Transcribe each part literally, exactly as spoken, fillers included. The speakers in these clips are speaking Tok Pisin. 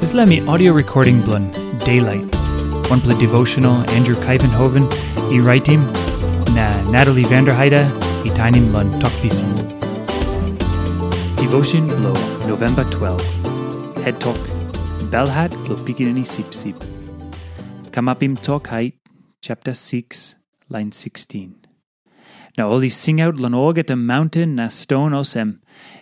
Dispela mi audio recording bilong Daylight, wanpela devotional Andrew Kaivenhoven i raitim, na Natalie Vanderheide i tainim long Tok Pisin. Devotion bilong November twelve. Het tok, Belhat bilong Pikinini Sipsip. Kamapim Tok Hait, chapter six, line sixteen. Na ol i singaut long olgeta maunten na ston olsem,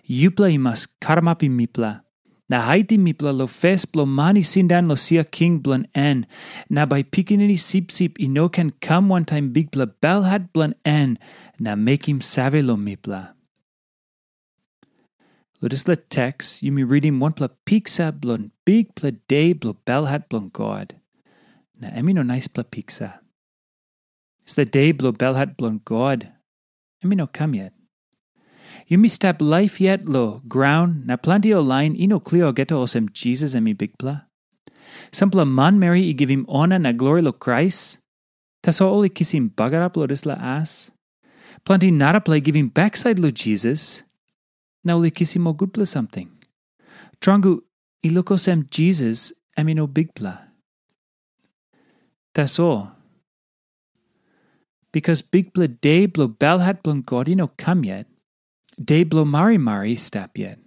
"Yupela i mas karamapim mipela, na haitim mipela long fes bilong man i sindaun long sia king bilong en, na bai Pikinini Sipsip i no ken kam wantaim bikpela belhat bilong en na mekim save long mipela." Long dispela teks, yumi ritim wanpela piksa bilong bikpela de bilong belhat bilong God. Na em i no naispela piksa. Dispela de bilong belhat bilong God, em i no kam yet. Yumi stap laip yet long graun, na planti ol lain i no klia olgeta olsem Jisas em i Bikpela. Sampela manmeri i givim ona na glori long Krais, tasol ol i kisim bagarap long dispela as. Planti narapela i givim baksait long Jisas, na ol i kisim ol gutpela samting. Tromoi, i luk olsem Jisas em i no Bikpela. Tasol, bikas bikpela de bilong belhat bilong God i no kam yet, de bilong marimari i stap yet.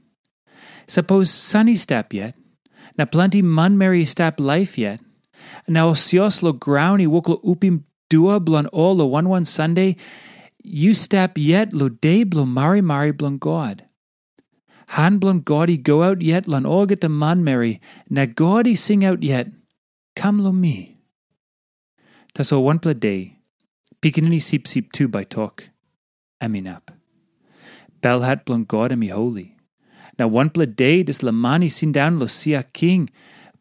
Sapos san i stap yet, na planti manmeri i stap laip yet, na ol sios long graun i wok long upim dua bilong ol long wan wan Sande, yu stap yet long de bilong marimari bilong God. Han bilong God i go aut yet long olgeta manmeri, na God i singaut yet, "Kam long mi." Tasol wanpela de, Pikinini Sipsip tu bai tok, "Em inap." Belhat bilong God em i holi. Na wanpela de dispela man i sindaun long sia king,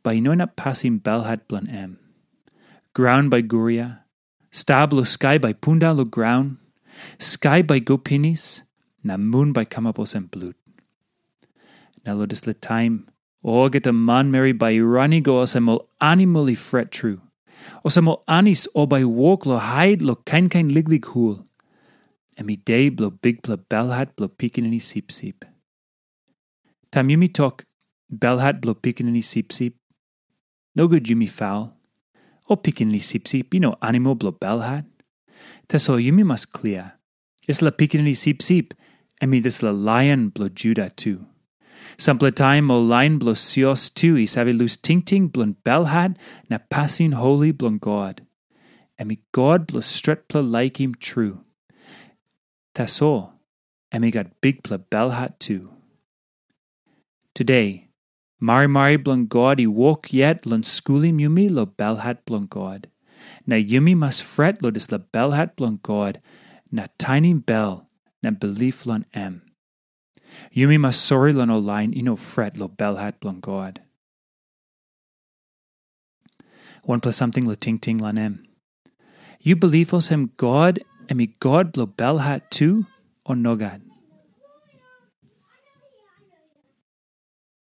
bai i no inap pasim belhat bilong em. Graun bai guria, sta bilong skai bai pundaun long graun, skai bai go pinis, na mun bai kamap olsem blut. Na long dispela taim, olgeta manmeri bai i ran i go olsem ol animal i fret tru, olsem ol anis ol bai i wok long hait long kain kain liklik hul. Em i de bilong bikpela belhat bilong Pikinini Sipsip. Taim yumi tok, "Belhat bilong Pikinini Sipsip," nogut yumi faul. Ol pikinini sipsip i no animal bilong belhat. Tasol yumi mas klia, dispela Pikinini Sipsip, em i dispela Laion bilong Juda tu. Sampela taim ol lain bilong sios tu i save lus tingting bilong belhat na pasin holi bilong God. Em i God bilong stretpela laikim tru. Tasol, em i gat bikpela belhat tu. Tude, marimari bilong God i wok yet long skulim yumi long belhat bilong God. Na yumi mas fret long dispela belhat bilong God, na tainim bel na bilip long em. Yumi mas sori long ol lain i no fret long belhat bilong God. Wanpela samting long tingting long em. Yu bilip olsem God em i God bilong belhat tu, o nogat?